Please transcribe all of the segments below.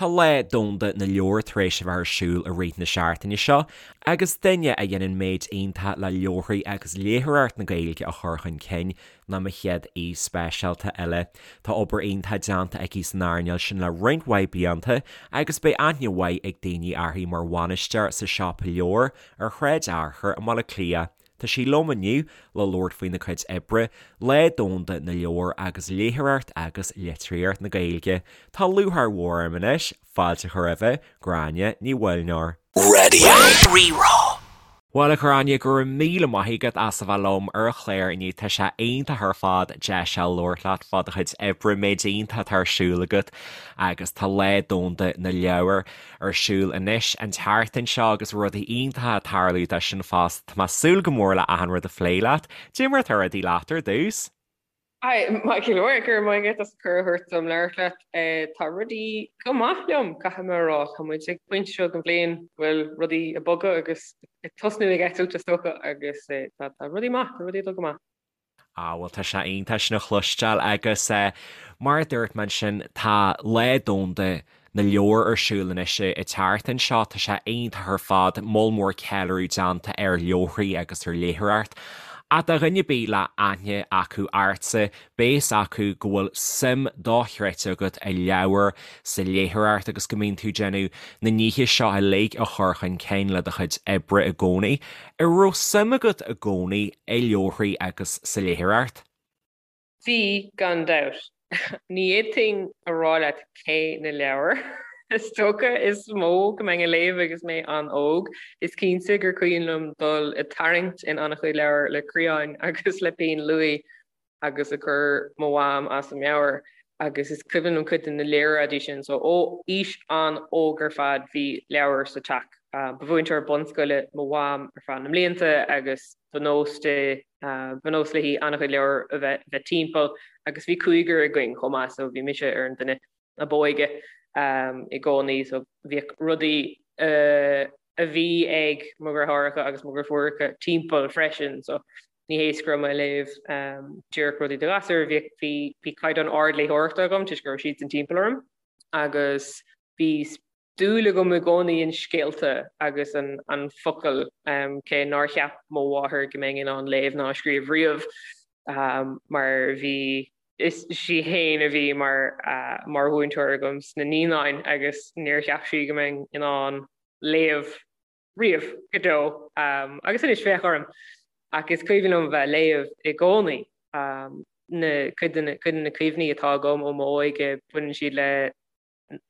Tá Lá Domhanda na Leabhar tar éis a bheith ar siúl i rith na seachtaine seo agus duine a dhéanann méid iontach le leabharthaí agus léitheoireacht na Gaeilge a chur chun cinn ná mo chéad aoi speisialta eile. Tá obair iontach déanta aici san earnáil sin le roinnt mhaith blianta agus beidh aithne mhaith ag daoine uirthi mar bhainisteoir sa Siopa Leabhar ar Shráid Fhearchair i mBaile Átha Cliath. Tá sí liom inniu le labhairt faoina cuid oibre, Lá Domhanda na Leabhar agus léitheoireacht agus litríocht na Gaeilge. Tá lúcháir mhór orm anois fáilte a chur roimhe, Gráinne Ní Mhuilneoir. Radio Rí-Rá. Bhuel a Ghráinne, go raibh míle maith agat as a bheith liom ar an chlár inniu. Tá sé iontach ar fad deis a labhairt leat fá do chuid oibre, méid iontach atá ar siúl agat agus tá Lá Domhanda na Leabhar ar siúl anois an tseachtain seo agus rudaí iontacha ag tarlú dó sin fosta. Tá mé ag súil go mór le achan rud a phlé leat. Cad é mar atá rudaí leat ar dtús? Hi, maith go leor, go raibh maith agat as cuireadh a thabhairt dom labhairt leat. Tá rudaí go maith liom, caithfidh mé a rá. Tá muid ag pointe seo den bhliain go bhfuil rudaí ag bogadh agus ag tosnú ag eitilt is dócha agus tá rudaí maith, tá rudaí ag dul go maith. Ah bhuel tá sé iontach sin a chloisteáil agus mar a dúirt mé ansin tá Lá Domhanda na Leabhar ar siúl anois an tseachtain seo, tá sé iontach ar fad, moll mór ceiliúradh déanta ar leabharthaí agus ar léitheoireacht. Ach do dhuine ar bith le aithne acu ortsa, beidh fhios acu go bhfuil suim dochreidte agat i leabhair, sa léitheoireacht agus go mbíonn tú ag déanamh na nithe seo uilig a chur chun cinn le do chuid oibre i gcónaí. An raibh suim agat i gcónaí i leabharthaí agus sa léitheoireacht? Bhí, gan dabht. Ní fhéadfainn a rá leat cé na leabhair is dócha is mó go mbeinn a léamh agus mé an-óg. Is cinnte gur cuimhin liom dul ag tarraingt in an-chuid leabhar le criáin agus le pinn luaidhe agus ag cur mo mham as a meabhair agus is cuimhin liom cuid de na léaráidí sin. So ó aois an-óg ar fad bhí leabhair sa teach. Ba mhúinteoir bunscoile mo mham ar feadh na mblianta agus ba nós di, ba nós léi an-chuid leabhar a bheith timpeall agus bhí cúigear againn chomh maith so bhí mise ar an duine ab óige i gcónaí so bhíodh rudaí a bhí ag mo dheartháireacha agus mo dheirfiúracha timpeall freisin so ní hé is go raibh mé ag léamh díreach rudaí do ghasúir, bhí bhí caighdeán ard léitheoireachta agam toisc go raibh siadsan timpeall orm agus bhí dúil agam i gcónaí in scéalta agus an an focal cé nár cheap mo mháthair go mbeinn in ann léamh ná scríobh riamh mar bhí is í féin a bhí mar mar mhúinteoir agam sna naíonáin agus níor cheap sí go mbeinn in ann léamh riamh go deo agus anois féach orm ach is cuimhin liom bheith ag léamh i gcónaí. Na cuid de na cuid de na cuimhní atá agam ó m'óige baineann siad le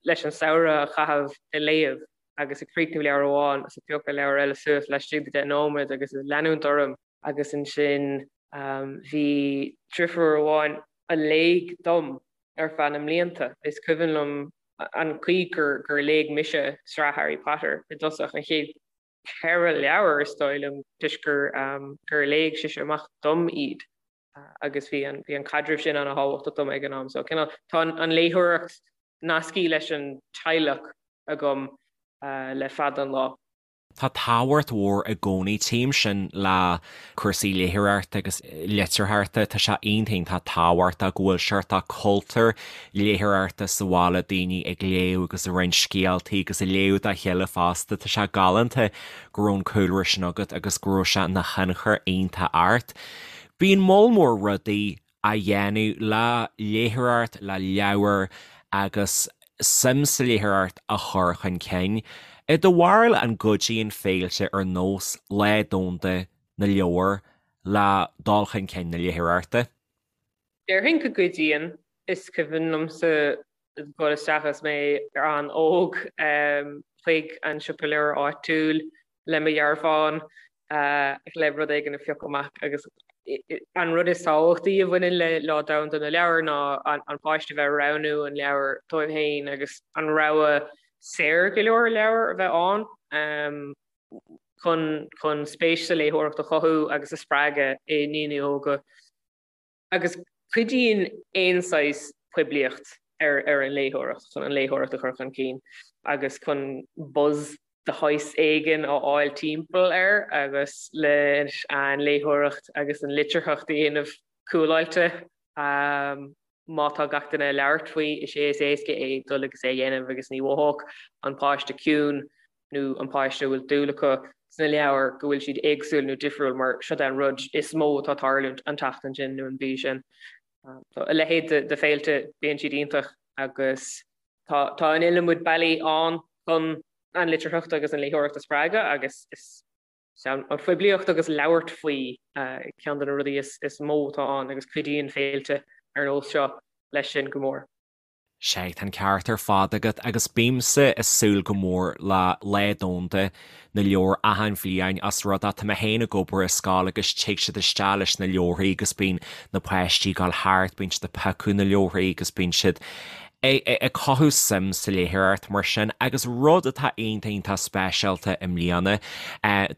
leis an samhradh a chaitheamh ag léamh agus ag críochnú leabhar amháin agus ag piocadh leabhar eile suas laistigh de 10 nóiméad agus ag leanúint orm agus ansin bhí driofúr amháin a léigh dom ar feadh na mblianta. Is cuimhin liom an chaoi gur gur léigh mise sraith Harry Potter i dtosach, an chéad cheithre leabhar is dóigh liom, toisc gur gur léigh sise amach dom iad agus bhí an bhí an caidreamh sin an-thábhachtach dom ag an am. So cineál tá an léitheoireacht nasctha leis an teaghlach agam le fada an lá. Tá tábhacht mhór i gcónaí, tchím sin le cúrsaí léitheoireachta agus litearthachta, tá sé iontach iontach tábhachtach go bhfuil seort cultúr léitheoireachta sa bhaile, daoine ag léamh agus ag roinnt scéaltaí agus ag léamh dá chéile fosta. Tá sé galánta go raibh an cúlra sin agat agus go raibh sé ina thionchar iontach ort. Bíonn moll mór rudaí á dhéanamh le léitheoireacht, le leabhair agus suim sa léitheoireacht a chur chun cinn. I do bharúil an gcuidíonn féilte ar nós Lá Domhanda na Leabhar le dul chun cinn na léitheoireachta? Déarfainn go gcuidíonn. Is cuimhin liomsa dul isteach agus mé an-óg chuig an siopa leabhar áitiúil le mo dhearbhán le rud éigin a phiocadh amach agus an rud is tábhachtaí a bhaineann le Lá Domhanda na Leabhar ná an páiste bheith ag roghnú an leabhar dóibh féin agus an rogha saor go leor leabhar a bheith ann chun chun spéis sa léitheoireacht a chothú agus a spreagadh i ndaoine óga. Agus cuidíonn aon saghas poiblíocht ar ar an léitheoireacht, chun an léitheoireacht a chur chun cinn agus chun buzz de shaghas éigin a fháil timpeall air agus leis an léitheoireacht agus an litearthacht a dhéanamh cúláilte. Má tá gach duine ag labhairt faoi, is é is éasca é dul agus é a dhéanamh agus ní mhothódh an páiste ciúin nó an páiste a bhfuil dúil acu sna leabhair go bhfuil siad éagsúil nó difriúil mar seo é an rud is mó atá ag tarlúint an tseachtain sin nó an mhí sin. So a leithéid de féilte, bíonn siad iontach agus tá tá an iliomad bealaí ann chun an litearthacht agus an léitheoireacht a spreagadh agus is an phoiblíocht agus labhairt faoi ceann de na rudaí is mó atá ann agus cuidíonn féilte ar nós seo leis sin go mór. Sea, tá an ceart ar fad agat agus bímse ag súil go mór le Lá Domhanda na Leabhar achan bhliain os rud é tá mé féin ag obair i scoil agus tig siad isteach leis na leabharthaí agus bíonn na páistí ag dul thart, bíonn siad ag piocadh na leabharthaí agus bíonn siad ag cothú suim sa léitheoireacht mar sin agus rud atá iontach iontach speisialta i mbliana,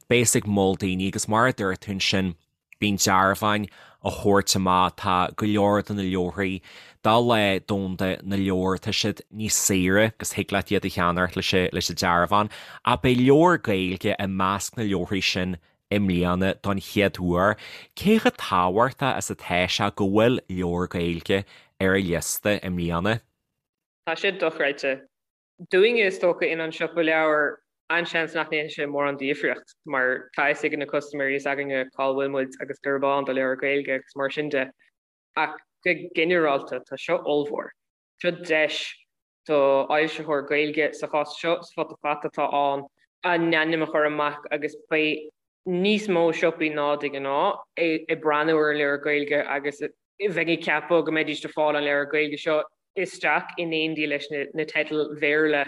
beas ag mol daoine agus mar a dúirt tú ansin, bíonn dearbháin á thabhairt amach, tá go leor de na leabharthaí do Lá Domhanda na Leabhar, tá siad níos saoire agus thig leat iad a cheannacht leis an dearbhán ach beidh leabhar Gaeilge i measc na leabharthaí sin i mbliana don chéad uair. Cé chomh tábhachtach is atá sé go bhfuil leabhar Gaeilge ar an liosta i mbliana? Tá sé dochreidte. Dúinne is dócha in An Siopa Leabhar an-seans nach ndéanfaidh sé mórán difríocht mar tá fhios ag na custaiméirí s'againne cá bhfuil muid agus gurb ann do leabhair Gaeilge agus mar sin de. Ach go ginearálta tá seo ollmhór. Seo deis do fhoilsitheoir Gaeilge, sa chás seo Futa Fata atá ann, a n-ainm a chur amach agus beidh níos mó siopaí ná de ghnáth ag breathnú ar an leabhar Gaeilge agus bheinn ag ceapadh go mbeidís ag fáil an leabhar Gaeilge seo isteach in éindí leis na teidil Bhéarla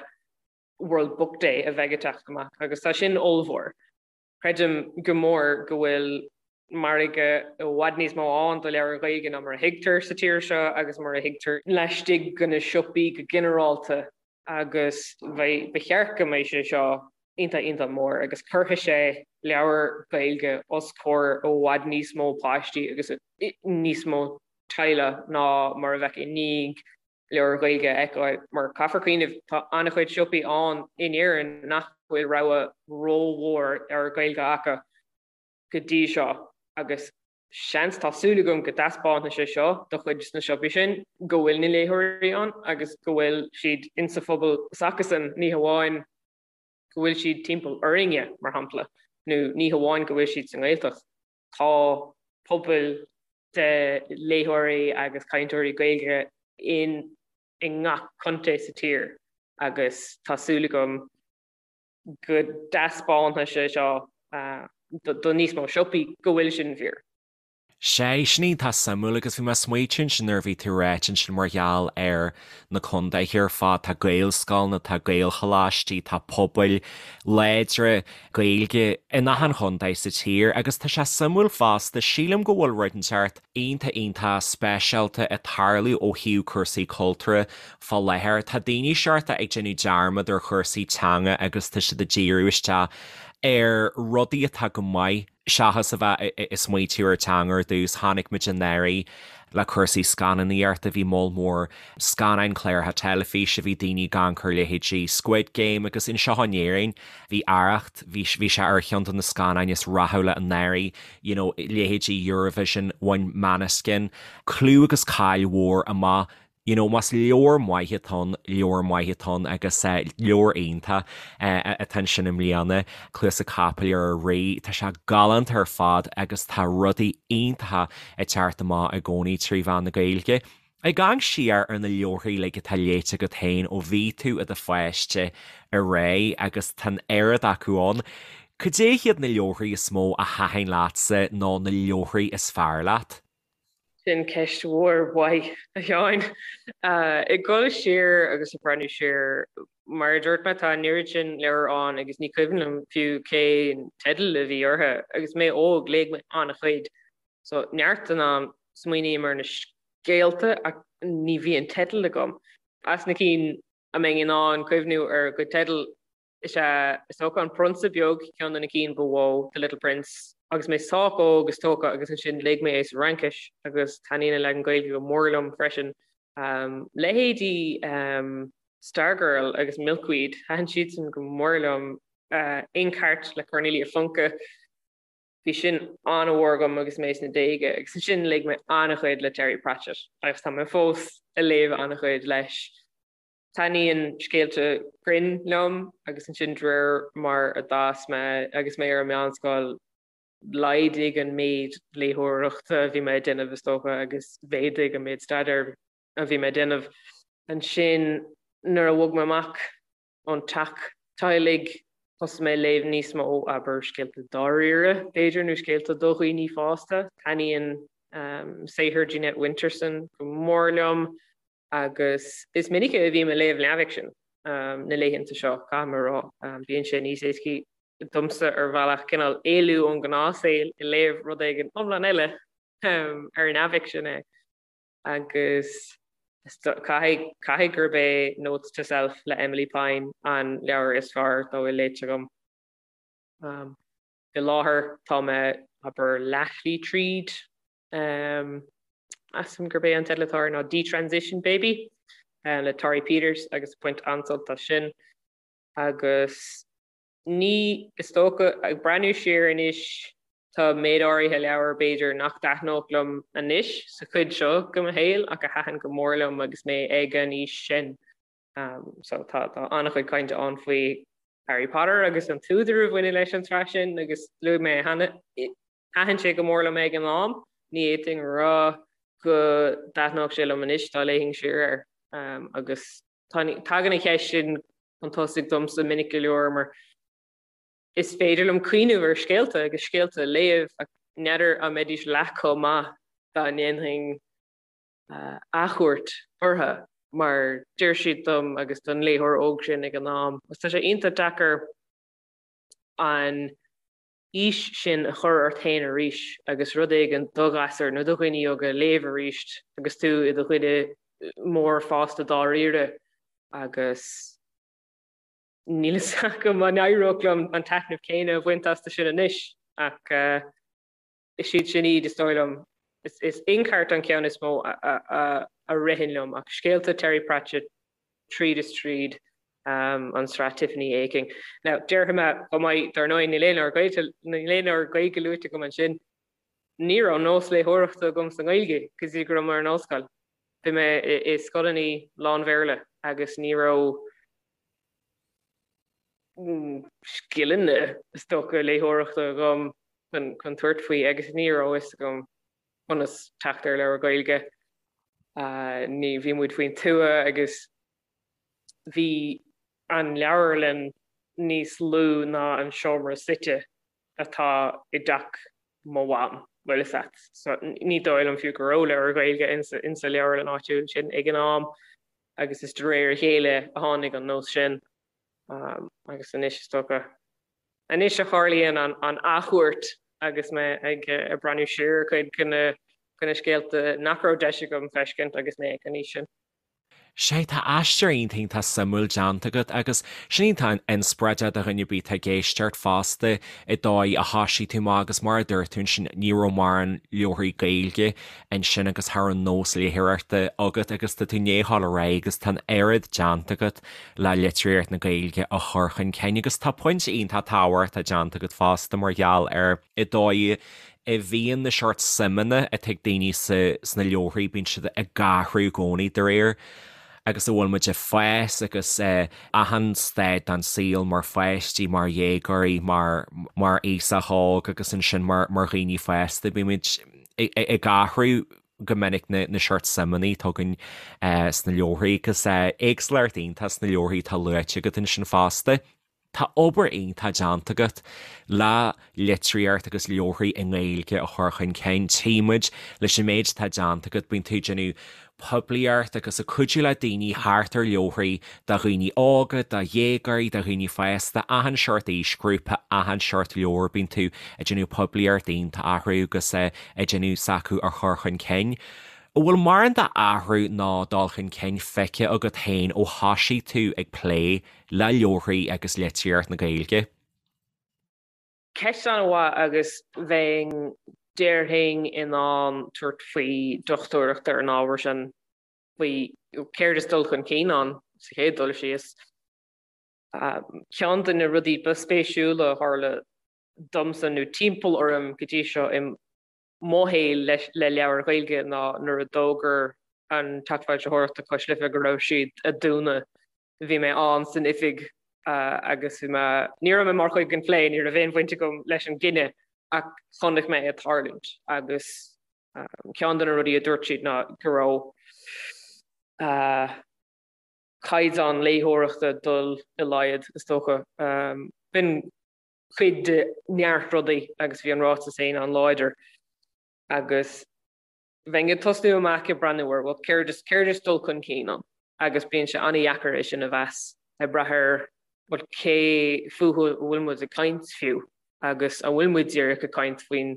World Book Day a bheidh ag teacht amach agus tá sin ollmhór. Creidim go mór go bhfuil margadh i bhfad níos mó ann do leabhair Ghaeilge ná mar a thuigtear sa tír seo agus mar a thuigtear laistigh de na siopaí go ginearálta agus ba cheart go mbeidh sé seo iontach iontach mór agus cuirfidh sé leabhair Ghaeilge os comhair i bhfad níos mó páistí agus níos mó teaghlach ná mar a bheadh i ndiaidh leabhair Ghaeilge a fheiceáil mar caithfear cuimhneamh tá an-chuid siopaí ann in Éirinn nach bhfuil rogha rómhór leabhar Gaeilge acu go dtí seo agus seans, tá súil agam go dtaispeánfaidh sé seo do chuid de na siopaí sin go bhfuil na léitheoirí ann agus go bhfuil siad insa phobal s'acusan, ní hamháin go bhfuil siad timpeall orainne, mar shampla, nó ní hamháin go bhfuil siad sa nGaeltacht. Tá pobail de léitheoirí agus cainteoirí Gaeilge in i ngach contae sa tír agus tá súil agam go dtaispeánfaidh sé seo do níos mó siopaí go bhfuil sin fíor. Sea, sin iontach suimiúil agus bhí mé ag smaoitiú ansin nuair a bhí tú ag ráit ansin mar gheall ar na contaetha ar fad, tá Gaelscoileanna, tá Gaelcholáistí, tá pobail láidre Gaeilge in achan chontae sa tír agus tá sé suimiúil fosta, sílim go bhfuil rud inteacht iontach iontach speisialta ag tarlú ó thaobh cúrsaí cultúrtha fá láthair. Tá daoine seort ag déanamh dearmad ar chúrsaí teanga agus tá siad ag díriú isteach ar rudaí atá go maith seachas a bheith ag smaoitiú ar teanga ar dtús. Chonaic muid anuraidh le cúrsaí scannánaíochta, bhí moll mór scannáin, cláracha teilifíse, bhí daoine ag amharc ar leithéidí Squid Game agus anseo in Éirinn bhí Arracht, bhí bhí sé ar cheann de na scannáin is rathúla anuraidh, you know leithéidí Eurovision, bhain Måneskin clú agus cáil mhór amach You know, más leabhar maith atá ann, leabhar maith atá ann agus leabhar iontach atá ansin i mbliana, Cluasa Capaill ar an Rí. Tá sé galánta ar fad agus tá rudaí iontacha ag teacht amach i gcónaí trí mheán na Gaeilge. Ag amharc siar ar na leabharthaí uilig atá léite agat féin ó bhí tú i do pháiste ar aghaidh agus tá an oiread acu ann, cad é hiad na leabharthaí is mó a thaitin leatsa nó na leabharthaí is fearr leat? Sin ceist mhór mhaith, a Sheáin. Ag dul siar agus ag breathnú siar, mar a dúirt mé, tá an oiread sin leabhar ann agus ní cuimhin liom fiú cén teideal a bhí orthu. Agus mé óg, léigh mé an-chuid. So, neart den am, smaoiním ar na scéalta ach ní bhíonn teideal agam. As na cinn a mbeinn in ann cuimhniú ar a gcuid teideal, Is ea, is dócha, An Prionsa Beag, ceann de na cinn ba mhó, The Little Prince. Agus mé sách óg, is dócha, agus ansin léigh mé é sa Fhraincis agus taitníonn an leagan Gaeilge go mór liom freisin. Leithéidí Stargirl agus Milkweed, thaitin siadsan go mór liom. Inkheart le Cornelia Funke. Bhí sin an-mhór agam agus mé sna déaga agus ansin léigh mé an-chuid le Terry Pratchett agus tá mé fós ag léamh an-chuid leis. Taitníonn scéalta grinn liom agus ansin de réir mar a d'fhás mé agus mé ar an meánscoil laghdaigh an méid léitheoireachta a bhí mé ag déanamh is dócha agus mhéadaigh an méid staidéir a bhí mé ag déanamh. Ansin nuair a bhog mé amach ón teach teaghlaigh thosaigh mé ag léamh níos mó, abair, scéalta dáiríre, b'fhéidir, nó scéalta do dhaoine fásta. Taitníonn saothar Jeanette Winterson go mór liom agus is minice a bhím ag léamh neamhfhicsin na laethanta seo, caithfidh mé a rá. Bíonn sé níos éascaí domsa ar bhealach cineál éalú ón ngnáthshaol ag léamh rud éigin iomlán eile ar neamhfhicsean é. Agus caithfidh, caithfidh gurb é Notes to Self le Emilie Pine an leabhar is fearr dá bhfuil léite agam. Faoi láthair tá mé, abair, leathshlí tríd. Measaim gurb é an teideal atá air ná Detransition Baby le Torrey Peters agus baint an-sult as sin. Agus ní, is dócha, ag breathnú siar anois, tá méid áirithe leabhar, b'fhéidir, nach dtaitneodh liom anois sa chuid seo de mo shaol ach a thaitin go mór liom agus mé ag an aois sin. So tá tá an-chuid cainte ann faoi Harry Potter agus an t-údar a bhaineann leis an tsraith sin agus luaigh mé cheana, thaitin sé go mór liom ag an am, ní fhéadfainn a rá go dtaitneodh sé liom anois dá léifinn siar air. Agus tagann an cheist sin chun tosaigh domsa minic go leor mar is féidir liom cuimhneamh ar scéalta agus scéalta a léamh ach n'fheadar an mbeidís leath chomh maith dá ndéanfainn athchuairt orthu mar d'oir siad dom agus don léitheoir óg sin ag an am. Agus tá sé iontach deacair an aois sin a chur ort féin arís agus rud éigin do ghasúir nó do dhaoine óga a léamh arís agus tú i do dhuine mór fásta dáiríre agus níl fhios agam an éireodh liom an taitneamh céanna a bhaint astu sin anois ach is iad sin iad is dóigh liom. Is Inkheart an ceann is mó a ritheann liom ach scéalta Terry Pratchett tríd is tríd an tsraith Tiffany Aching. Now, déarfaidh mé chomh maith, dar ndóigh, níl aon leabhar Gaeilge, níl aon leabhar Gaeilge luaite agam ansin. Ní raibh nós léitheoireachta agam sa nGaeilge go dtí go raibh mé ar an ollscoil. Bhí mé i scoileanna lán-Bhéarla agus ní raibh scileanna, is dócha, léitheoireachta agam chun tabhairt faoi agus ní raibh fhios agam conas teacht ar leabhar Gaeilge. Ní, bhí muid faoin tuath agus bhí an leabharlann níos lú ná an seomra suite atá i dteach mo mham, bhfuil fhios a't. So ní dóigh liom fiú go raibh leabhar Gaeilge insa leabharlann áitiúil sin ag an am agus is de réir a chéile a tháinig an nós sin agus anois is dócha anois a tharlaíonn an athchuairt agus mé ag breathnú siar ar chuid de na scéalta nach raibh deis agam feiscint agus mé ag an aois sin. Sea, tá aistear iontach iontach suimiúil déanta agat agus sin iontach inspioráideach do dhuine ar bith atá ag éisteacht fosta an dóigh a thoisigh tú amach agus mar a dúirt tú ansin ní raibh mórán leabharthaí Gaeilge ansin agus cha raibh nós léitheoireachta agat agus tá tú i ndiaidh a ghabháil ar aghaidh agus tá an oiread déanta agat le litríocht na Gaeilge a chur chun cinn agus tá pointe iontach tábhachtach déanta agat fosta mar gheall ar an dóigh a bhíonn na seort suimeanna atá ag daoine sna leabharthaí, bíonn siad ag athrú i gcónaí de réir agus a bhfuil muid ag fás agus achan staid den saol mar pháistí, mar dhéagóirí, mar mar aosach óg agus ansin mar mar dhaoine fásta, bímid ag athrú go minic na na seort suimeanna atá againn sna leabharthaí agus éagsúlacht iontach sna leabharthaí atá luaite agat ansin fosta. Tá obair iontach déanta agat le litríocht agus leabharthaí i nGaeilge a chur chun cinn. Tchí muid leis an méid atá déanta agat, bíonn tú ag déanamh poiblíocht agus ag cuidiú le daoine thart ar leabharthaí do dhaoine óga, do dhéagóirí, do dhaoine fásta, achan seort aoisghrúpa, achan seort leabhar, bíonn tú ag déanamh poiblíocht iontach orthu agus ag déanamh s'acu a chur chun cinn. An bhfuil mórán d'athrú ná dul chun cinn feicthe agat féin ó thoisigh tú ag plé le leabharthaí agus litríocht na Gaeilge? Ceist an-mhaith agus bheinn, déarfainn, in ann tabhairt faoi dochtúireacht ar an ábhar sin, faoi céard is dul chun cinn ann sa chéad dul síos. Ceann de na rudaí ba spéisiúla a tharla. domsa nó timpeall orm go dtí seo i mo shaol le leabhair Ghaeilge ná nuair a d'fhógair an Teach Foilsitheoireachta Cois Life go raibh siad ag dúnadh. Bhí mé ann san oifig agus bhí mé, ní raibh mé mar chuid den phlé, ní raibh aon bhaint agam leis an gcinneadh ach chonaic mé é ag tarlúint agus ceann de na rudaí a dúirt siad ná go raibh caighdeán léitheoireachta ag dul i laghad, is dócha. B'in cuid de neart rudaí agus bhí an ráiteas féin an-láidir agus bheinn ag tosnú amach ag breathnú ar, bhuel, céard is, céard is dul chun cinn ann? Agus bíonn sé an-dheacair é sin a mheas ag brath ar, bhuel, cé fúthu a bhfuil muid ag caint fiú agus an bhfuil muid díreach ag caint faoin,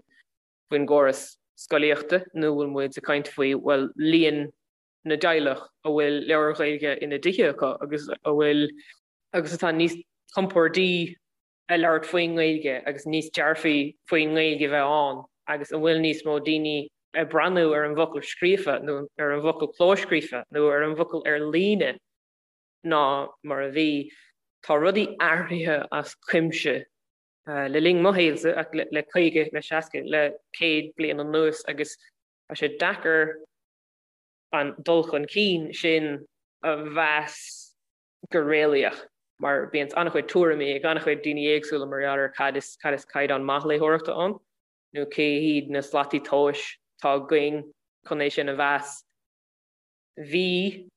faoin gcóras scolaíochta nó an bhfuil muid ag caint faoi, bhuel, líon na dteaghlach a bhfuil leabhair Ghaeilge ina dtithe acu agus a bhfuil, agus atá níos compordaí ag labhairt faoin nGaeilge agus níos dearfaí faoin nGaeilge bheith ann agus an bhfuil níos mó daoine ag breathnú ar an bhfocal scríofa nó ar an bhfocal clóscríofa nó ar an bhfocal ar líne ná mar a bhí. Tá rudaí athraithe as cuimse le linn mo shaolsa ach le 50, le 60, le 100 bliain anuas agus tá sé deacair an dul chun cinn sin a mheas go réalaíoch mar bíonn an-chuid tuairimí ag an-chuid daoine éagsúla mar gheall ar cad is cad is caighdeán maith léitheoireachta ann nó cé hiad na slataí tomhais atá againn chun é sin a mheas. Bhí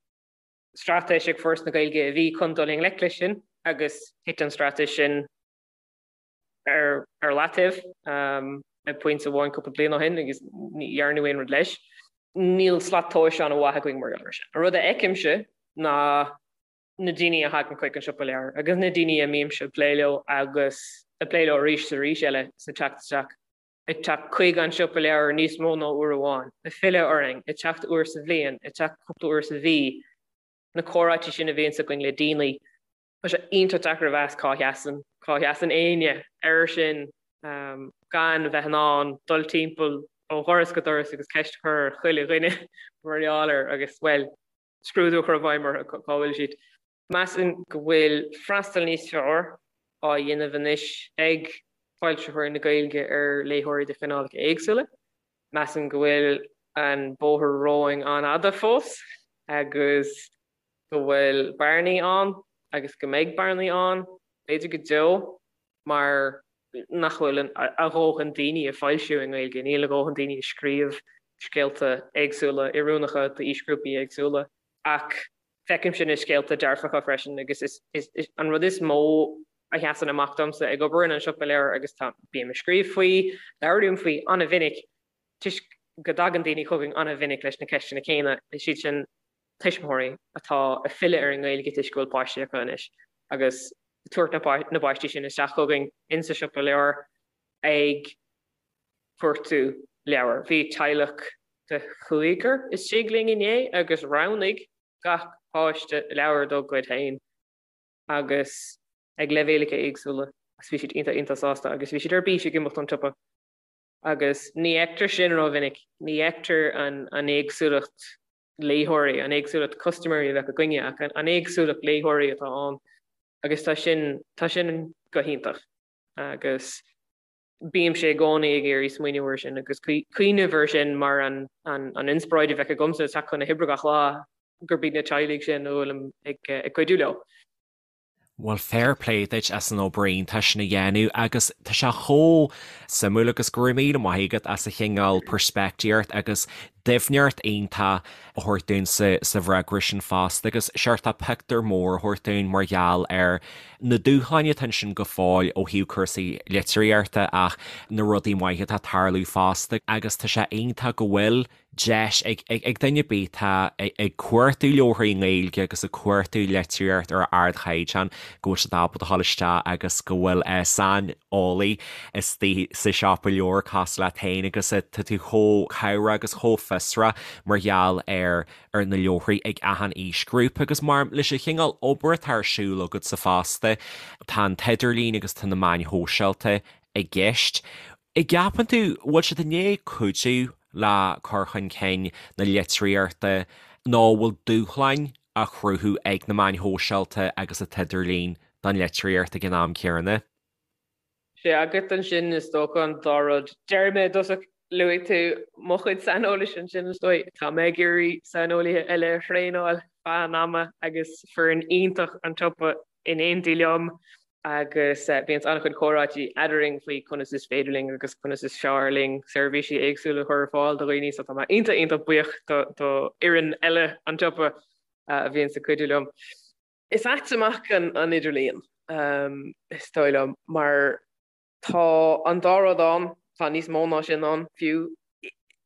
straitéis ag Foras na Gaeilge a bhí chun dul i ngleic leis sin agus thit an straitéis sin ar ar leataobh ag pointe amháin cúpla bliain ó shin agus ní dhearnadh aon rud leis. Níl slat tomhais an-mhaith againn mar gheall air sin. An rud a fheicimse ná na daoine a thagann chuig an siopa leabhar agus na daoine a mbímse ag plé leo agus ag plé leo arís is arís eile sa teacht isteach, ag teacht chuig an siopa leabhar níos mó ná uair amháin, ag filleadh orainn, ag teacht uair sa bhliain, ag teacht cúpla uair sa mhí, na comhráití sin a bhíonns againn le daoine. Tá sé iontach deacair a mheas cá sheasann, cá sheasann éinne air sin gan bheith in ann dul timpeall ó dhoras go doras agus ceist a chur ar chuile dhuine mar gheall air agus, bhuel, scrúdú a chur i bhfeidhm orthu cá bhfuil siad. Measaim go bhfuil freastal níos fearr á dhéanamh anois ag foilsitheoirí na Gaeilge ar léitheoirí de chineálacha éagsúla. Measaim go bhfuil an bóthar romhainn an-fhada fós agus go bhfuil bearnaí ann agus go mbeidh bearnaí ann, b'fhéidir go deo, mar nach bhfuil a dhóthain daoine ag foilsiú i nGaeilge, níl a dhóthain daoine ag scríobh scéalta éagsúla, oiriúnacha d'aoisghrúpaí éagsúla. Ach feicimse na scéalta dearfacha freisin agus is an rud is mó a sheasann amach domsa ag obair in An Siopa Leabhar agus tá, bím ag scríobh faoi, labhraím faoi an-mhinic toisc go dtagann daoine chugainn an-mhinic leis na ceisteanna céanna, is iad sin tuismitheoirí atá ag filleadh ar an nGaeilge toisc go bhfuil páistí acu anois agus ag tabhairt na bpáistí sin isteach chugainn insa siopa leabhar ag cuartú leabhar. Bhí teaghlach de chúigear istigh linn inné agus roghnaigh gach páiste leabhar dá gcuid féin agus ag leibhéalacha éagsúla agus bhí siad iontach iontach sásta agus bhí siad ar bís ag imeacht ón tsiopa. Agus ní fheictear sin rómhinic, ní fheictear an éagsúlacht léitheoirí, an éagsúlacht custaiméirí a bheadh againne, ach an éagsúlacht léitheoirí atá ann agus tá sin, tá sin go hiontach. Agus bímse i gcónaí ag iarraidh smaoineamh air sin agus cuimhneamh air sin mar an inspioráid a bheadh agamsa ag teacht chun na hoibre gach lá, gurb iad na teaghlaigh sin a bhfuilim ag cuidiú leo. Bhuel, fair play duit as an obair iontach sin a dhéanamh agus tá sé chomh suimiúil agus go raibh míle maith agat as an chineál peirspictíocht agus doimhneacht iontach a thabhairt dúinn sa sa bhfreagra sin fosta agus seort pictiúr mór a thabhairt dúinn mar gheall ar na dúshláin atá ansin go fóill ó thaobh cúrsaí litríochta ach na rudaí maithe atá ag tarlú fosta agus tá sé iontach go bhfuil deis ag duine ar bith atá ag cuartú leabharthaí i nGaeilge agus ag cuartú litríocht ar ardchaighdeán go bhfuil siad ábalta a dhul isteach agus go bhfuil saineolaí istigh sa siopa leabhar cosúil leat féin agus tá tú chomh cabhrach agus chomh fiosrach mar gheall ar ar na leabharthaí ag achan aoisghrúpa agus mar leis an chineál obair atá ar siúl agatsa fosta tá an t-idirlíon agus tá na meáin shóisialta i gceist. An gceapann tú, bhfuil siad i ndiaidh cuidiú le cur chun cinn na litríochta nó bhfuil dúshláin á chruthú ag na meáin shóisialta agus an t-idirlíon don litríocht ag an am céanna? Sé agat ansin is dócha an dá rud. Déarfaidh mé i dtosach, luaigh tú mo chuid saineolais ansin is dóigh. Tá mé ag iarraidh saineolaithe eile a thraenáil feadh an ama agus foireann iontach an tsiopa in éindí liom agus bíonn an-chuid comhráití eadrainn faoi conas is féidir linn agus conas is fearr linn seirbhísí éagsúla a chur ar fáil do dhaoine so tá mé iontach iontach buíoch do fhoireann eile an tsiopa a bhíonns ag cuidiú liom. Is ait amach an idirlíon, is dóigh liom, mar tá an dá rud ann, tá níos mó ná sin ann fiú.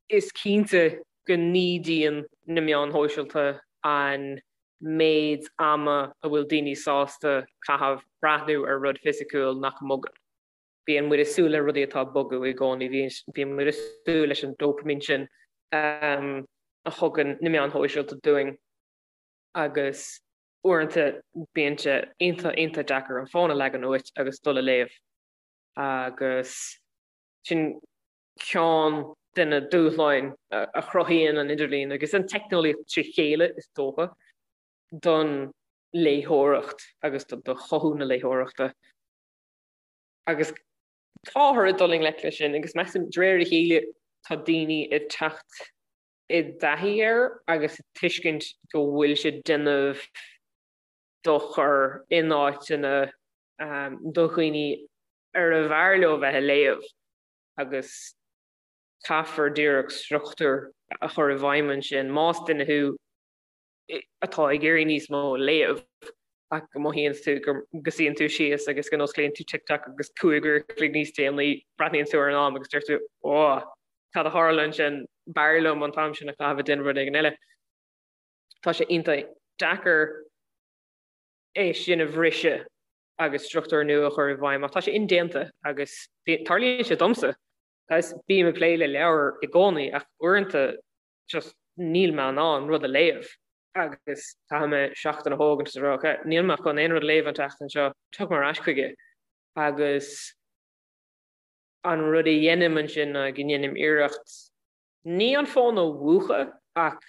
Is cinnte go n-ídíonn na meáin shóisialta an méid ama a bhfuil daoine sásta caitheamh breathnú ar rud fisiciúil nach mbogann. Bíonn muid ag súil le rudaí atá ag bogadh i gcónaí, bíonn muid ag súil leis an dópaimín sin a thugann na meáin shóisialta dúinn. agus uaireanta bíonn sé iontach iontach deacair an fón a leagan uait agus dul a léamh agus sin ceann de na dúshláin a chruthaíonn an idirlíon agus an teicneolaíocht trí chéile is dócha don léitheoireacht agus do chothú na léitheoireachta. Agus táthar ag dul i ngleic leis sin agus measaim de réir a chéile tá daoine ag teacht i dtaithí air agus ag tuiscint go bhfuil sé ag déanamh dochar in áiteanna do dhaoine arbh fhearr leo bheith ag léamh agus caithfear díreach struchtúr a chur i bhfeidhm ansin. Más duine thú atá ag iarraidh níos mó a léamh ach go mothaíonn tú go suíonn tú síos agus go n-osclaíonn tú TikTok agus 5 uair a chloig níos déanaí breathnaíonn tú ar an am agus deir tú 'Ó, cad a tharla ansin, b'fhearr liom an t-am sin a chaitheamh ag déanamh rud éigin eile. Tá sé iontach deacair é sin a bhriseadh agus struchtúr nua a chur i bhfeidhm ach tá sé indéanta agus tarlaíonn sé domsa. Agus bím ag plé le leabhair i gcónaí ach uaireanta just níl mé in ann rud a léamh agus caithfidh mé seachtain a thógaint is a rá ok, níl mé chun aon rud a léamh an tseachtain seo, tiocfaidh mé ar ais chuige agus an rud a dhéanaim ansin ná go ndéanaim iarracht ní an fón a mhúchadh ach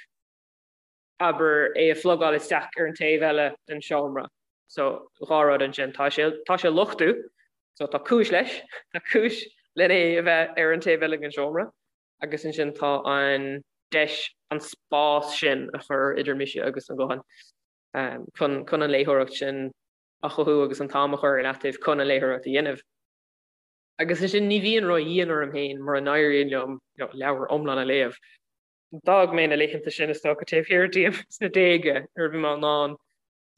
abair é a phlugáil isteach ar an taobh eile den seomra. So dhá rud ansin, tá sé tá sé luchtú, so tá cúis leis, tá cúis len é a bheith ar an taobh eile den seomra. agus ansin tá an deis an spás sin a chur idir mise agus an guthán chun chun an léitheoireacht sin a chothú agus an t-am a chur ar leataobh chun an léitheoireacht a dhéanamh. Agus ansin ní bhíonn ró-dhian orm féin mura n-éiríonn liom leabhar iomlán a léamh. D'fhág mé na laethanta sin is dócha taobh thiar díom sna déaga nuair a bhí mé in ann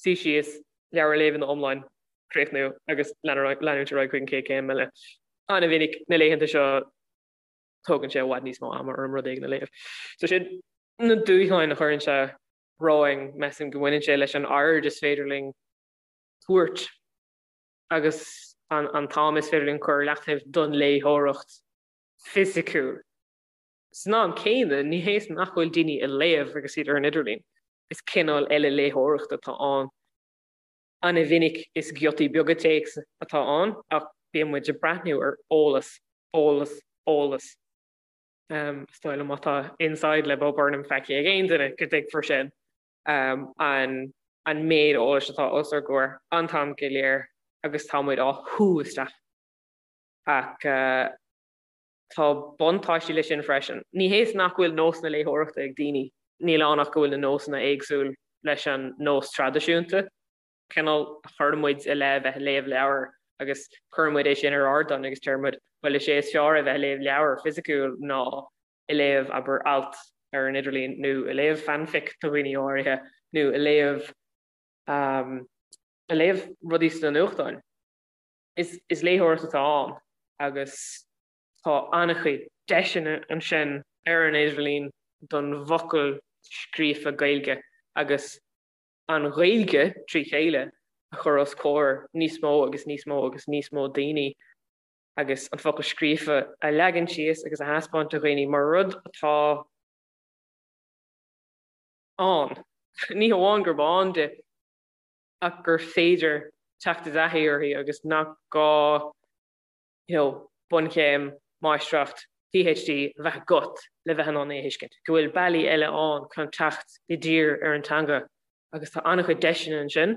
suí síos, leabhar a léamh ina iomlán, críochnú agus leanúint ar aghaidh chuig an chéad chéim eile. An-mhinic na laethanta seo tógann sé i bhfad níos mó ama orm rud éigin a léamh. So sin na dúshláin a chuireann sé romhainn, measaim go mbaineann sé leis an aird is féidir linn tabhairt agus an t-am is féidir linn cur ar leataobh don léitheoireacht fisiciúil. San am céanna, ní hé nach bhfuil daoine ag léamh agus iad ar an idirlíon, is cineál eile léitheoireachta atá ann. An-mhinic is giotaí beaga téacs atá ann ach bíonn muid ag breathnú ar eolas, eolas, eolas. Is dóigh liom má tá Inside le Bo Burnham feicthe ag aon duine go dtuigfear sin. An an méid eolais atá os ár gcomhair an t-am go léir agus tá muid á shú isteach. Ach tá buntáistí leis sin freisin. Ní hé is nach bhfuil nósanna léitheoireachta ag daoine, níl ann ach go bhfuil na nósanna éagsúil leis an nós traidisiúnta. Cineál a chuir muid i leith bheith ag léamh leabhar agus cuireann muid é sin ar ardán agus deir muid, bhuel is é is fearr a bheith ag léamh leabhar fisiciúil ná ag léamh, abair, alt ar an idirlíon nó ag léamh fanfic do dhaoine áirithe nó ag léamh ag léamh rudaí sna nuachtáin. Is is léitheoireacht atá ann agus tá an-chuid deiseanna ansin ar an idirlíon don bhfocal scríofa Gaeilge agus an Ghaeilge trí chéile a chur os comhair níos mó agus níos mó agus níos mó daoine agus an focal scríofa a leagan síos agus a thaispeáint do dhaoine mar rud atá ann. Ní hamháin gurb ann di ach gur féidir teacht i dtaithí uirthi agus nach gá you know, bunchéim, máistreacht, PhD a bheith agat le bheith in ann é a thuiscint, go bhfuil bealaí eile ann chun teacht i dtír ar an teanga agus tá an-chuid deiseanna ansin,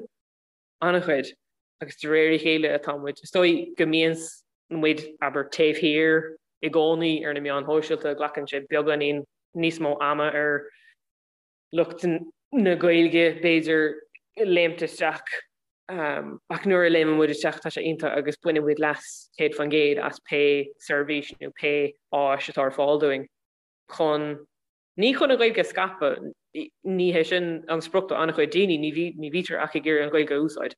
an-chuid, agus de réir a chéile atá muid, is dóigh go mbíonn. muid, abair, taobh thiar i gcónaí ar na meáin shóisialta, glacann sé beagáinín níos mó ama ar lucht na Gaeilge, b'fhéidir, léimt isteach. Ach nuair a léimeann muid isteach tá sé iontach agus baineann muid leas 100% as pé seirbhís nó pé áis atá ar fáil dúinn chun, ní chun an Ghaeilge a scaipeadh, ní hé sin an sprioc do an-chuid daoine, ní bhítear ach ag iarraidh an Ghaeilge a úsáid.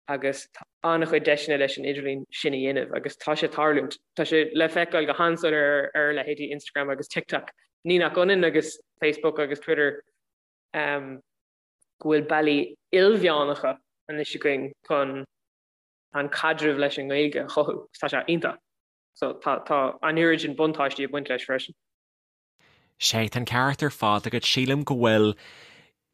Agus tá an-chuid deiseanna leis an idirlíon sin a dhéanamh agus tá sé ag tarlúint. Tá sé le feiceáil go han-soiléir ar leithéidí Instagram agus TikTok. Ní nach ionann agus Facebook agus Twitter go bhfuil bealaí ilmheánacha anois againn chun an caidreamh leis an nGaeilge a chothú. Tá sé iontach. So tá tá an oiread sin buntáistí ag baint leis freisin. Sea, tá an ceart ar fad agat. Sílim go bhfuil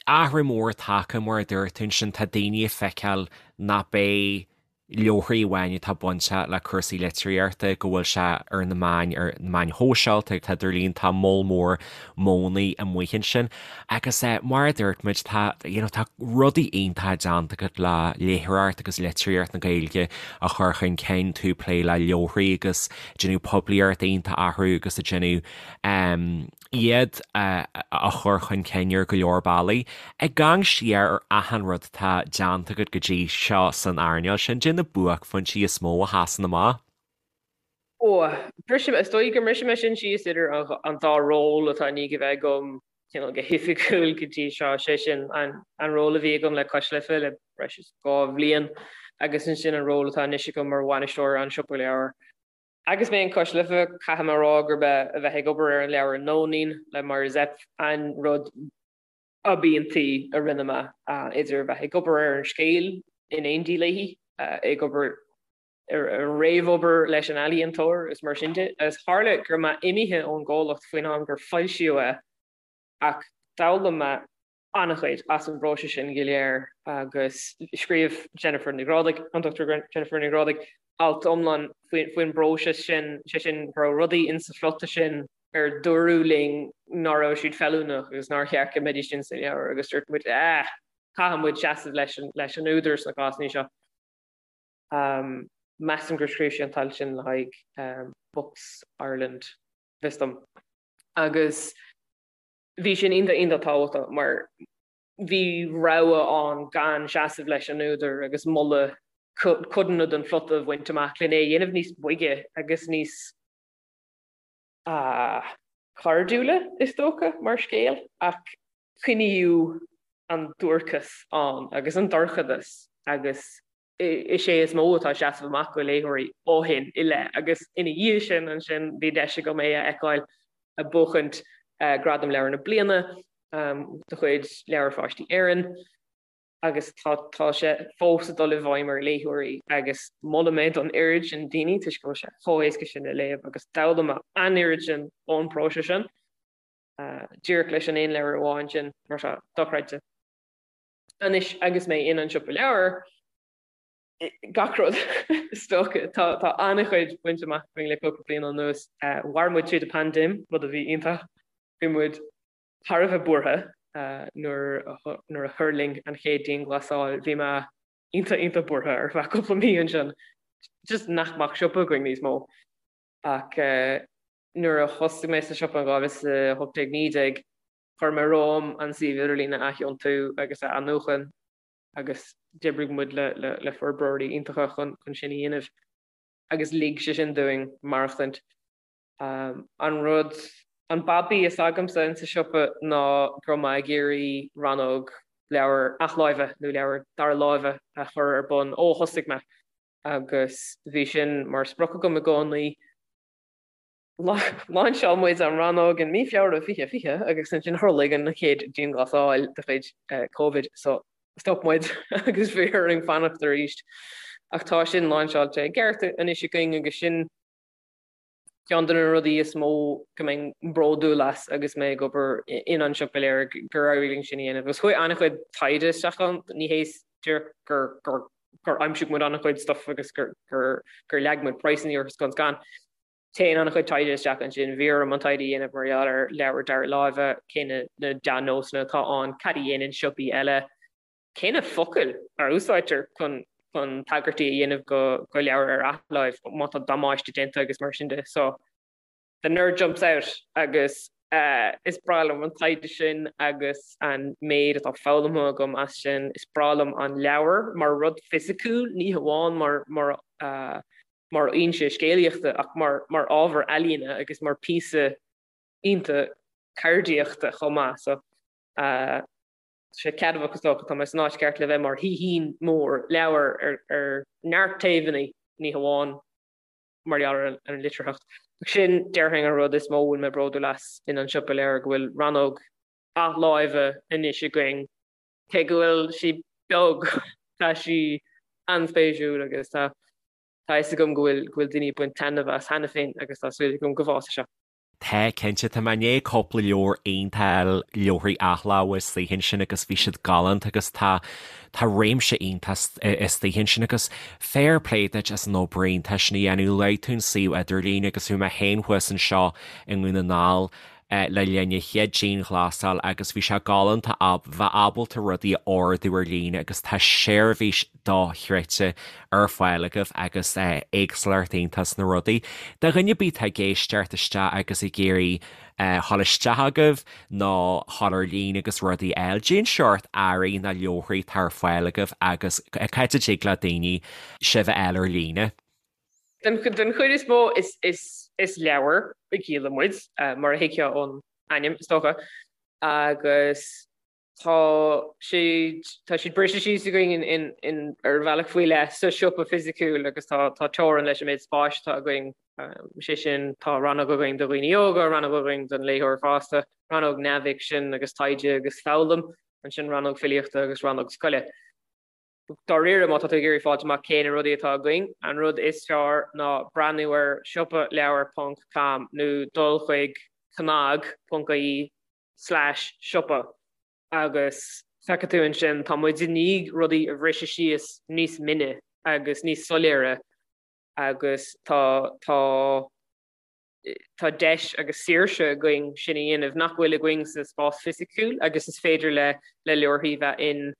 athrú mór tagtha, mar a dúirt tú ansin, tá daoine ag feiceáil nach b'é leabharthaí amháin atá bainteach le cúrsaí litríochta, go bhfuil sé ar na meáin, ar na meáin shóisialta, tá idirlíon, tá moll mór modhanna amuigh ansin. Agus mar a dúirt muid, tá, you know, tá rudaí iontacha déanta agat le léitheoireacht agus litríocht na Gaeilge a chur chun cinn, tú ag plé le leabharthaí agus déanamh poiblíocht iontach orthu agus ag déanamh iad a chur chun cinn ar go leor bealaí. Ag amharc siar ar achan rud atá déanta agat go dtí seo san earnáil sin, cad é na buaicphointí is mó a sheasann amach. Ó, brisfidh mé, is dóigh go mbrisfidh mé sin síos idir an dá ról atá i ndiaidh a bheith agam cineál go hoifigiúil go dtí seo, sé sin an ról a bhí agam le Cois Life le breis is 2 bhliain agus ansin an ról atá anois agam mar bhainisteoir an Siopa Leabhar. Agus mé in Cois Life, caithfidh mé a rá gurb é a bheith ag obair ar an leabhar Nóinín le Máire Zepf an rud ab iontaí a rinne mé, idir a bheith ag obair ar an scéal in éindí léi, ag obair ar an réamhobair leis an ealaíontóir is mar sin de. Agus tharla go raibh mé imithe ón gcomhlacht faoin am gur foilsíodh é ach d'fhoghlaim mé an-chuid as an bpróiseas sin go léir agus scríobh Jennifer Ní Ghrádaigh, an Dr Jennifer Ní Ghrádaigh, alt iomlán faoin bpróiseas sin, sé sin go raibh rudaí insa phlota sin ar dúradh linn ná raibh siad feiliúnach agus nár cheart go mbeidís insa leabhar agus dúirt muid ah, caithfidh muid seasamh leis an, leis an údar sna cásanna seo. Measaim gur scríobh sí an t-alt sin le haghaidh Books Ireland, fios dom. Agus bhí sin iontach iontach tábhachtach mar bhí rogha ann gan seasamh leis an údar agus moladh codanna den phlota a bhaint amach lena é a dhéanamh níos boige agus níos cairdiúla, is dócha, mar scéal, ach coinníodh an duairceas ann agus an dorchadas agus is é is mó atá ag seasamh amach do léitheoirí ó shin i leith agus ina dhiaidh sin ansin bhí deis agam é a fheiceáil ag buachaint Gradam Leabhar na Bliana de chuid Leabhair Pháistí Éireann agus tá tá sé fós ag dul i bhfeidhm ar léitheoirí agus molaim é don oiread sin daoine toisc go bhfuil sé chomh héasca sin le léamh agus d'fhoghlaim mé an oiread sin ón bpróiseas sin díreach leis an aon leabhar amháin sin mar seo dochreidte. Anois agus mé in An Siopa Leabhar, gach rud is dócha. Tá tá an-chuid bainte amach againn le cúpla bliain anuas. Mhair muid tríd an paindéim, rud a bhí iontach. Bhí muid thar a bheith buartha nuair nuair a thuirling an chéad dianghlasáil. Bhí mé iontach iontach buartha ar feadh cúpla mí ansin. Just nach mbeadh siopa againn níos mó. Ach nuair a thosaigh mé sa siopa in 2018, 19, Chuir mé romham an suíomh idirlín a aththiontú agus a athnuachan agus d'oibrigh muid le forbróirí iontacha chun sin a dhéanamh agus lig sé sin dúinn maireachtaint. An rud, an babaí is agamsa insa siopa ná go raibh mé ag iarraidh rannóg leabhar athláimhe nó leabhar dara láimhe a chur ar bun ó thosaigh mé agus bhí sin mar sprioc agam i gcónaí. Lainseáil muid an rannóg in mí Feabhra 2020 agus ansin tharlaigh an chéad dianghlasáil de chuid Covid so stop muid agus bhí orainn fanacht arís. Ach tá sin lainseáilte i gceart anois againn agus sin ceann de na rudaí is mó go mbeinn bródúil as agus mé ag obair in An Siopa Leabhar gur éirigh linn sin a dhéanamh. Agus chuaigh an-chuid taighde isteach ann, ní hé díreach gur gur aimsigh muid an-chuid stuff agus gur gur leag muid praghsanna orthu scun scan. Téann an-chuid taighde isteach ansin. Bhí orm an taighde a dhéanamh mar gheall ar leabhair dara láimhe, cé na dea-nósanna atá ann, cad a dhéanann siopaí eile, cé na focail a úsáidtear chun chun tagairtí a dhéanamh go go leabhair ar athláimh má tá damáiste déanta agus mar sin de. So the nerd jumps out agus is breá liom an taighde sin agus an méid atá foghlamtha agam as sin. Is breá liom an leabhar mar rud fisiciúil, ní hamháin mar mar mar fhoinse scéalaíochta ach mar mar ábhar ealaíne agus mar píosa iontach ceardaíochta chomh maith. So tá sé ceadmhach is dócha, tá mé san áit cheart le bheith mar shaoithín mór leabhar ar ar neart taobhanna, ní hamháin mar gheall ar an litearthacht. Ach sin, déarfainn, an rud is mó a bhfuil mé bródúil as in An Siopa Leabhar, go bhfuil rannóg athláimhe anois againn. Cé go bhfuil sí beag, tá sí an-spéisiúil agus tá tá a fhios agam go bhfuil go bhfuil daoine ag baint taitneamh as cheana féin agus tá súil agam go bhfásfaidh sé. Tá, cinnte. Tá mé i ndiaidh cúpla leabhar iontach a fháil, leabharthaí athláimhe istigh ansin agus bhí siad galánta agus tá, tá réimse iontach istigh ansin agus fair play duit as an obair iontach sin a dhéanamh. Luaigh tú an suíomh idirlín agus bhí mé féin thuas anseo i nDún na nGall le linn an chéad dianghlasáil agus bhí sé galánta bheith ábalta rudaí a ordú ar líne agus tá seirbhís dochreidte ar fáil agaibh agus éagsúlacht iontach sna rudaí. Do dhuine ar bith atá ag éisteacht isteach agus ag iarraidh dhul isteach agaibh nó dhul ar líne agus rudaí a fháil, cén seort earraí nó leabharthaí atá ar fáil agaibh agus cá háit a dtig le daoine sibh a fháil ar líne? Den chuid is mó is leabhair a dhíolann muid, mar a thuigfeá ón ainm is dócha, agus Tá siad tá siad briste síos againn in in ar bhealach faoi leith sa siopa fisiciúil agus tá tá teorainn leis an méid spáis atá againn. Sé sin, tá rannóg againn do dhaoine óga, rannóg againn don léitheoir fásta, rannóg neamhfhicsin agus taighde agus foghlaim, ansin rannóg filíochta agus rannóg scoile. Dáiríre, má tá tú ag iarraidh fáilt amach cé na rudaí atá againn, an rud is fearr ná breathnú ar siopaleabhar ponc com nó dul chuig cnag ponc ie slash siopa agus feicfidh tú ansin, tá muid i ndiaidh rudaí a bhriseadh síos níos mine agus níos soiléire agus tá tá tá deis agus saoirse againn sin a dhéanamh nach bhfuil againn sa spás fisiciúil agus is féidir le le leabharthaí bheith in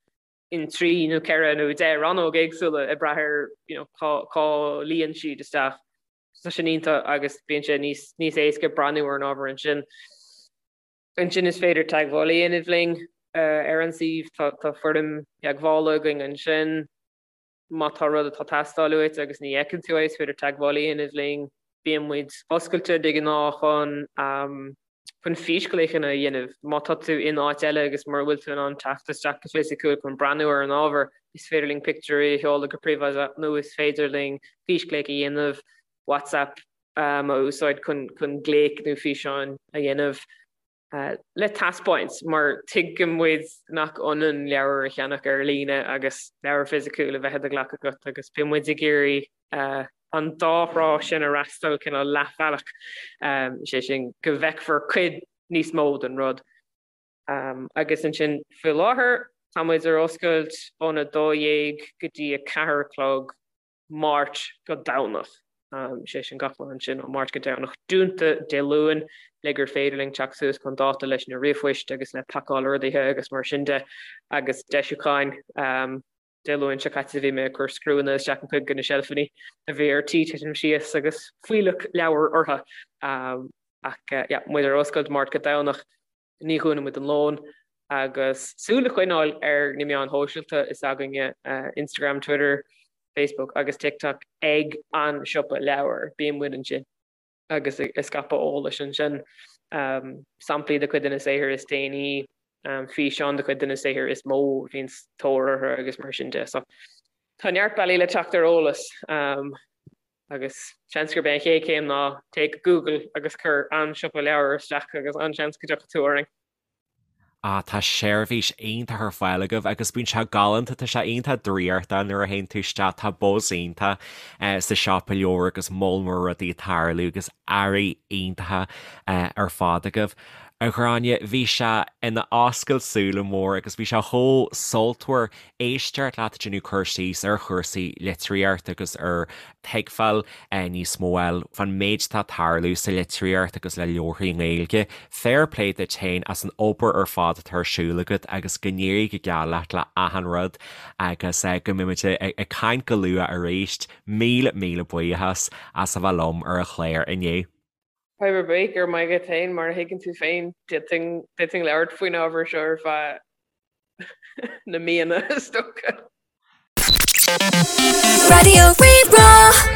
in 3 nó 4 nó 10 rannóg éagsúla ag brath ar you know cá cá luíonn siad isteach. Tá sin iontach agus bíonn sé níos níos éasca breathnú ar an ábhar ansin. Ansin is féidir teagmháil a dhéanamh linn ar an suíomh, tá tá foirm theagmhála againn ansin. Má tá rud atá ag teastáil uait agus ní fheiceann tú é, is féidir teagmháil a dhéanamh linn. Bíonn muid oscailte de ghnáth chun chun físghlaochanna a dhéanamh. Má tá tú in áit eile agus mura bhfuil tú in ann teacht isteach go fisiciúil chun breathnú ar an ábhar, is féidir linn pictiúirí a sheoladh go príobháideach nó is féidir linn físghlaoch a dhéanamh, WhatsApp a úsáid chun chun glaoch nó físeáin a dhéanamh le taispeáint mar tuigeann muid nach ionann leabhar a cheannach ar líne agus leabhar fisiciúil a bheith i do ghlac agat agus bíonn muid ag iarraidh an dá thrá sin a fhreastal cineál leathbhealach, sé sin go bhfeicfear cuid níos mó den rud. Agus ansin faoi láthair tá muid ar oscailt óna 12 go dtí 4 a chlog Máirt go Domhnach, sé sin gach lá ansin ó Máirt go Domhnach, dúnta Dé Luain le gur féidir linn teacht suas chun dáta leis na ríomhphoist agus le pacáil orduithe agus mar sin de agus deisiúcháin. Dé Luain seo caite bhí mé ag cur scriúnna isteach in cuid de na seilfeanna a bhí ar tí titim síos agus fuílleach leabhar orthu. Ach yeah, muid ar oscailt Máirt go Domhnach, ní dhúnann muid don lón agus súil a choinneáil ar na meáin shóisialta is againne, Instagram, Twitter, Facebook agus TikTok ag An Siopa Leabhar. Bíonn muid ansin. agus ag scaipeadh eolais ansin, samplaí de chuid de na saothair is déanaí, físeáin de chuid de na saothair is mó a bhíonn tóir orthu agus mar sin de. So tá neart bealaí le teacht ar eolas agus seans gurb é an chéad chéim ná téigh go Google agus cuir An Siopa Leabhar isteach agus an-seans go dtiocfaidh tú orainn. Ah, tá seirbhís iontach ar fáil agaibh agus bíonn sé galánta, tá sé iontach draíochtach nuair a théann tú isteach, tá buzz iontach sa siopa leabhar agus moll mór rudaí ag tarlú agus earraí iontacha ar fad agaibh. A Ghráinne, bhí sé ina oscailt súile mór agus bhí sé chomh sultmhar éisteacht leat ag déanamh cur síos ar chúrsaí litríochta agus ar thuigbheáil níos mó eile fán méid atá ag tarlú sa litríocht agus le leabharthaí Gaeilge. Fair play duit féin as an obair ar fad atá ar siúl agat agus go n-éirí go geal leat le achan rud agus go mbeimid ag caint go luath arís. Míle míle buíochas as a bheith liom ar an chlár inniu. Fadhb ar bith, go raibh maith agat féin, mar a thuigeann tú féin, d'fhéadfainn labhairt faoin ábhar seo ar feadh na míonna is dócha. Raidió Rí-Rá.